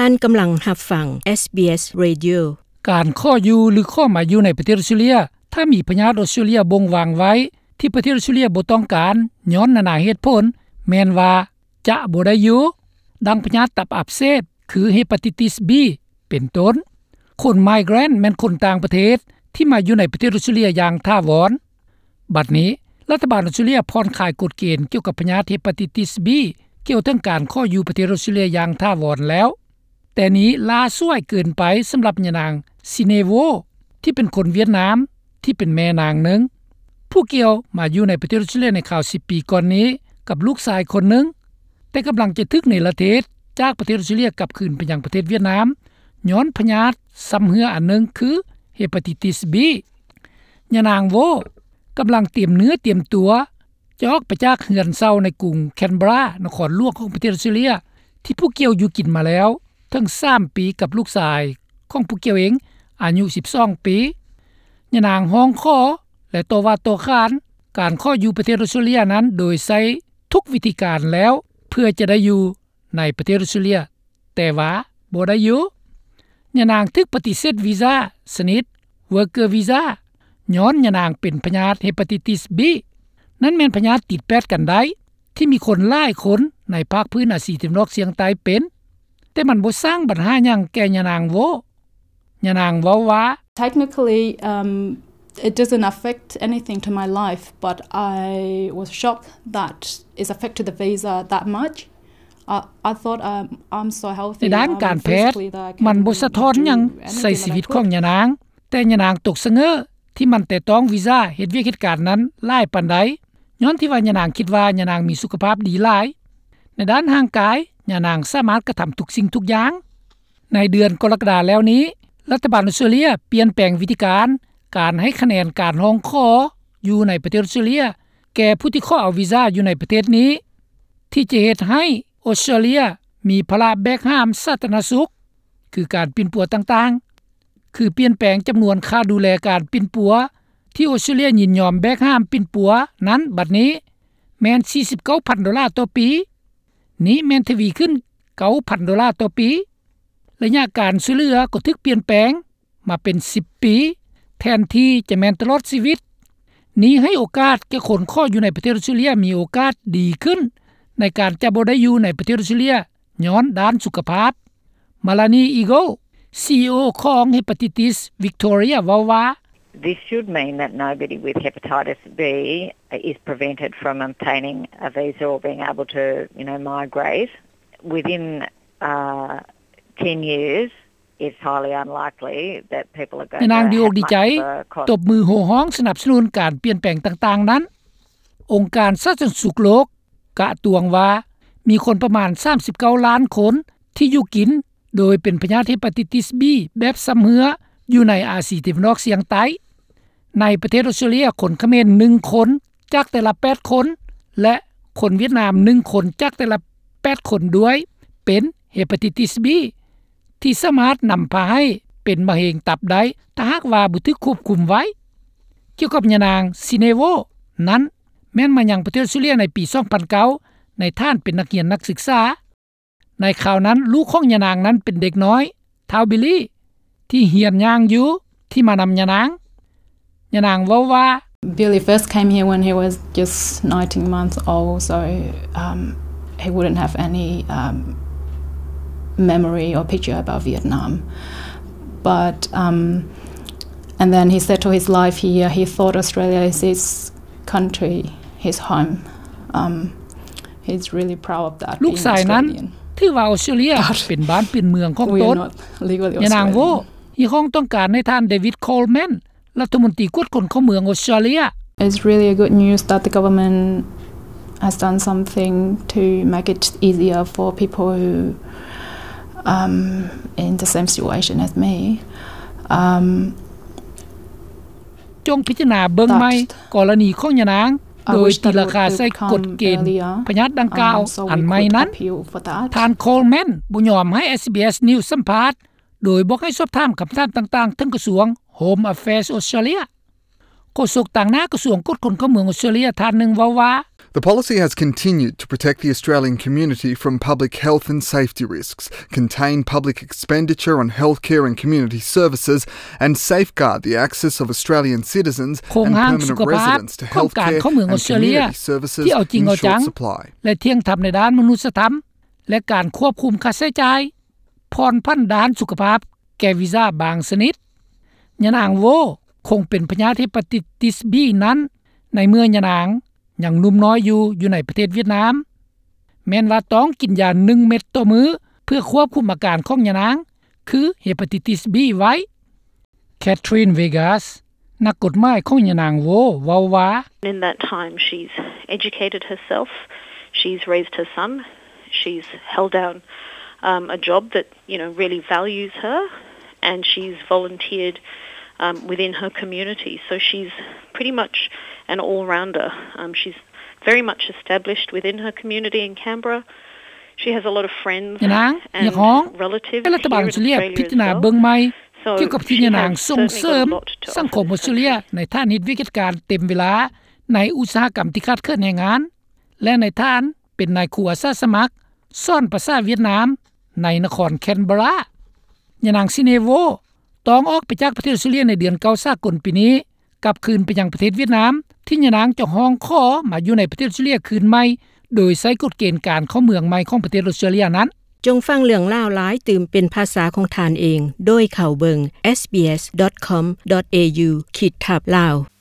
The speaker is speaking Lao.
ທ່ານກຳລັງຮັບຟັງ SBS Radio. ການຂໍຢູ່ ຫຼື ຂໍມາຢູ່ໃນປະເທດອົດສະຕຣາເລຍ ຖ້າມີພະຍາດອົດສະຕຣາເລຍບົ່ງວາງໄວ້ ທີ່ປະເທດອົດສະຕຣາເລຍບໍ່ຕ້ອງການ ຍ້ອນນານາເຫດຜົນ ແມ່ນວ່າຈະບໍ່ໄດ້ຢູ່, ດັ່ງພະຍາດຕັບອັກເສບ ຄື Hepatitis B ເປັນຕົ້ນ. ຄົນ migrant ແມ່ນຄົນຕ່າງປະເທດ ທີ່ມາຢູ່ໃນປະເທດອົດສະຕຣາເລຍຢ່າງຖາວອນ. ບັດນີ້ ລັດຖະບານອົດສະຕຣາເລຍຜ່ອນຄາຍກົດເກນກ່ຽວກັບພະຍາດ Hepatitis B ກ່ຽວເຖິງການຂໍຢູ່ປະເທດອົດສະຕຣາເລຍຢ່າງຖາວອນແລ້ວ, ແຕ່ນີ້ລ້າສວາຍເກີນໄປສຳລັບຍານາງ Sinevo ທີ່ເປັນຄົນຫວຽດນາມ ທີ່ເປັນແມ່ນາງໜຶ່ງ ຜູ້ກ່ຽວມາຢູ່ໃນປະເທດອົດສະຕຣາເລຍໃນຄາວສິບປີກ່ອນນີ້ ກັບລູກຊາຍຄົນໜຶ່ງ, ແຕ່ກຳລັງຈະຖືກເນລະເທດຈາກປະເທດອົດສະຕຣາເລຍກັບຄືນໄປຍັງປະເທດຫວຽດນາມ ຍ້ອນພະຍາດຊຳເຮື້ອອັນໜຶ່ງ ຄື Hepatitis B. ຍານາງ Vo ກຳລັງຕຽມເນື້ອຕຽມຕົວ ຈະອອກໄປຈາກເຮືອນເຊົ່າໃນກຸງ Canberra ນະຄອນຫຼວງຂອງປະເທດອົດສະຕຣາເລຍ ທີ່ຜູ້ກ່ຽວຢູ່ກິນມາແລ້ວເຖິງສາມປີກັບລູກຊາຍຂອງຜູ້ກ່ຽວເອງ ອາຍຸສິບສອງປີ. ຍານາງຮ້ອງຂໍ ແລະ ຕໍ່ວ່າຕໍ່ຂານການຂໍຢູ່ປະເທດອົດສະຕຣາເລຍນັ້ນ ໂດຍໃຊ້ທຸກວິທີການແລ້ວ ເພື່ອຈະໄດ້ຢູ່ໃນປະເທດອົດສະຕຣາເລຍ ແຕ່ວ່າບໍ່ໄດ້ຢູ່. ຍານາງຖືກປະຕິເສດວີຊາຊະນິດ Worker Visa ຍ້ອນຍານາງເປັນພະຍາດ Hepatitis B. ນັ້ນແມ່ນພະຍາດຕິດແປດກັນໄດ້ ທີ່ມີຄົນຫຼາຍຄົນໃນພາກພື້ນອາຊີຕາເວັນອອກສ່ຽງໃຕ້ເປັນ, ແຕ່ມັນບໍ່ສ້າງບັນຫາຫຍັງແກ່ຍານາງ Vo. ຍານາງເວົ້າວ່າ Technically, um, it doesn't affect anything to my life, but I was shocked that it's affected the visa that much. I, I thought, um, I'm so healthy, ໃນດ້ານການແພດ um, physically that I can ມັນບໍ່ສະທ້ອນຫຍັງ do anything ໃສ່ຊີວິດຂອງຍານາງ, ແຕ່ຍານາງຕົກສະເຫງີ້ທີ່ມັນແຕະຕ້ອງວີຊາເຮັດວຽກເຮັດການນັ້ນຫຼາຍປານໃດ, ຍ້ອນທີ່ວ່າຍານາງຄິດວ່າຍານາງມີສຸຂະພາບດີຫຼາຍ. ໃນດ້ານຮ່າງກາຍ, ຍານາງສາມາດກະທຳທຸກສິ່ງທຸກຢ່າງ. ໃນເດືອນກໍລະກະດາແລ້ວນີ້, ລັດຖະບານອົດສະຕຣາເລຍປ່ຽນແປງວິທີການ ການໃຫ້ຄະແນນການຮ້ອງຂໍຢູ່ໃນປະເທດອົດສະຕຣາເລຍ ແກ່ຜູ້ທີ່ຂໍເອົາວີຊາຢູ່ໃນປະເທດນີ້ ທີ່ຈະເຮັດໃຫ້ອົດສະຕຣາເລຍມີພາລະແບກຫາມສາທາລະນະສຸກ ຄືການປິ່ນປົວຕ່າງໆ ຄືປ່ຽນແປງຈຳນວນຄ່າດູແລການປິ່ນປົວ ທີ່ອົດສະຕຣາເລຍຍິນຍອມແບກຫາມປິ່ນປົວນັ້ນ ບັດນີ້ແມ່ນສີ່ສິບເກົ້າພັນໂດລາຕໍ່ປີ, ນີ້ແມ່ນທະວີຂຶ້ນເກົ້າພັນໂດລາຕໍ່ປີ. ໄລຍະການຊ່ວຍເຫຼືອກໍຖືກປ່ຽນແປງມາເປັນສິບປີ ແທນທີ່ຈະແມ່ນຕະຫຼອດຊີວິດ. ນີ້ໃຫ້ໂອກາດແກ່ຄົນຂໍຢູ່ໃນປະເທດອົດສະຕຣາເລຍມີໂອກາດດີຂຶ້ນ ໃນການຈະບໍ່ໄດ້ຢູ່ໃນປະເທດອົດສະຕຣາເລຍ ຍ້ອນດ້ານສຸຂະພາບ. Melanie Eagle, CEO ຂອງ Hepatitis Victoria ເວົ້າວ່າ This should mean that nobody with hepatitis B is prevented from obtaining a visa or being able to, you know, migrate. Within, uh, ten years, it's highly unlikely that people are going to have much of a con- ຍານາງດີອົກດີໃຈ ຕົບມືໂຫ່ຮ້ອງສະໜັບສະໜູນການປ່ຽນແປງຕ່າງໆນັ້ນ. ອົງການສາທາລະນະສຸກໂລກ ກະຕວງວ່າ ມີຄົນປະມານສາມສິບເກົ້າລ້ານຄົນທີ່ຢູ່ກິນໂດຍເປັນພະຍາດ Hepatitis B ແບບຊຳເຮື້ອຢູ່ໃນອາຊີຕາເວັນອອກສ່ຽງໃຕ້. ໃນປະເທດອົດສະຕຣາເລຍ, ຄົນຂະເໝນໜຶ່ງຄົນຈາກແຕ່ລະແປດຄົນ ແລະ ຄົນຫວຽດນາມໜຶ່ງຄົນຈາກແຕ່ລະແປດຄົນດ້ວຍເປັນ Hepatitis B ທີ່ສາມາດນຳພາໃຫ້ເປັນມະເຮັງຕັບໄດ້ ຖ້າຫາກວ່າບໍ່ຖືກຄວບຄຸມໄວ້. ກ່ຽວກັບຍານາງ Sinevo ນັ້ນ, ແມ່ນມາຍັງປະເທດອົດສະຕຣາເລຍໃນປີສອງພັນເກົ້າ ໃນຖານເປັນນັກຮຽນນັກສຶກສາ. ໃນຄາວນັ້ນ, ລູກຂອງຍານາງນັ້ນເປັນເດັກນ້ອຍ ທ້າວ Billy ທີ່ຮຽນຍ່າງຢູ່ ທີ່ມານຳຍານາງ. ຍານາງເວົ້າວ່າ Billy first came here when he was just nineteen months old, so, um, he wouldn't have any, um, memory or picture about Vietnam. But, um, and then he settled his life here. He thought Australia is his country, his home. Um, he's really proud of that, ລູກຊາຍນັ້ນ being Australian. ຖືວ່າອົດສະຕຣາເລຍ But ເປັນບ້ານເປັນເມືອງຂອງ we ຕົນ are not legally ຍານາງ Australian. ເວົ້າຮຽກຮ້ອງຕ້ອງການໃຫ້ທ່ານ David Coleman ລັດຖະມົນຕີກວດຄົນເຂົ້າເມືອງອົດສະຕຣາເລຍ. It's really a good news that the government has done something to make it easier for people who, um, in the same situation as me. Um, ຈົ່ງພິຈາລະນາເບິ່ງໃໝ່ That ກໍລະນີຂອງຍານາງ I wish that it would have come earlier. ໂດຍຕີລາຄາໃສ່ກົດເກນພະຍາດດັ່ງກ່າວ Um, so we ອັນໃໝ່ນັ້ນ. Could appeal for that. ທ່ານ Coleman ບໍ່ຍອມໃຫ້ SBS News ສຳພາດ ໂດຍບອກໃຫ້ສອບຖາມຄຳຖາມຕ່າງໆເຖິງກະຊວງ Home Affairs Australia. ໂຄສົກຕາງໜ້າກະຊວງກວດຄົນເຂົ້າເມືອງອົດສະຕຣາເລຍທ່ານໜຶ່ງເວົ້າວ່າ The policy has continued to protect the Australian community from public health and safety risks, contain public expenditure on healthcare and community services, and safeguard the access of Australian citizens ໂຄງຮ່າງສຸຂະພາບ ຂອງການເຂົ້າເມືອງອອສເຕຣເລຍ ທີ່ເອົາຈິງເອົາຈັງ ແລະ ທ່ຽງທຳໃນດ້ານມະນຸດສະທຳ ແລະ ການຄວບຄຸມຄ່າໃຊ້ຈ່າຍ ຜ່ອນຜັນດ້ານສຸຂະພາບ ແກ່ວິຊາບາງຊະນິດ. ຍານາງໂວ ຄົງເປັນພະຍາດເຮປາຕິຕິສ B ນັ້ນ ໃນເມື່ອຍານາງຍັງໜຸ່ມນ້ອຍຢູ່ ຢູ່ໃນປະເທດຫວຽດນາມ ແມ່ນວ່າຕ້ອງກິນຢາໜຶ່ງເມັດຕໍ່ມື້ ເພື່ອຄວບຄຸມອາການຂອງຍານາງ ຄືເຮປາຕິຕິສ B ໄວ້. Catherine Vegas ນັກກົດໝາຍຂອງຍານາງໂວ ເວົ້າວ່າ In that time, she's educated herself, she's raised her son, she's held down, um, a job that, you know, really values her, and she's volunteered, um, within her community. So she's pretty much an all-rounder. Um, she's very much established within her community in Canberra. She has a lot of friends and relatives here in Australia as well. ຍານາງຮຽກຮ້ອງໃຫ້ລັດຖະບານອອສເຕຣເລຍພິຈາລະນາເບິ່ງໃໝ່ ກ່ຽວກັບທີ່ຍານາງສົ່ງເສີມສັງຄົມອອສເຕຣເລຍ ໃນຖານເຮັດວຽກເຮັດການເຕັມເວລາ ໃນອຸດສາຫະກຳທີ່ຂາດເຂີນແຮງງານ ແລະ ໃນຖານເປັນນາຍຄູອາສາສະໝັກ ສອນພາສາຫວຽດນາມ ໃນນະຄອນແຄນເບີຣາ. ຍານາງຊິເນໂວ ຕ້ອງອອກໄປຈາກປະເທດອອສເຕຣເລຍໃນເດືອນເກົ້າສາກົນປີນີ້ ກັບຄືນໄປຍັງປະເທດຫວຽດນາມ ທີ່ຍານາງຈະຮ້ອງຂໍມາຢູ່ໃນປະເທດອອສເຕຣເລຍຄືນໃໝ່ ໂດຍໃຊ້ກົດເກນການເຂົ້າເມືອງໃໝ່ຂອງປະເທດອອສເຕຣເລຍນັ້ນ. ຈົ່ງຟັງເລື່ອງລາວຫຼາຍຕື່ມເປັນພາສາຂອງທ່ານເອງ ໂດຍເຂົ້າເບິ່ງ sbs.com.au/lawraysia.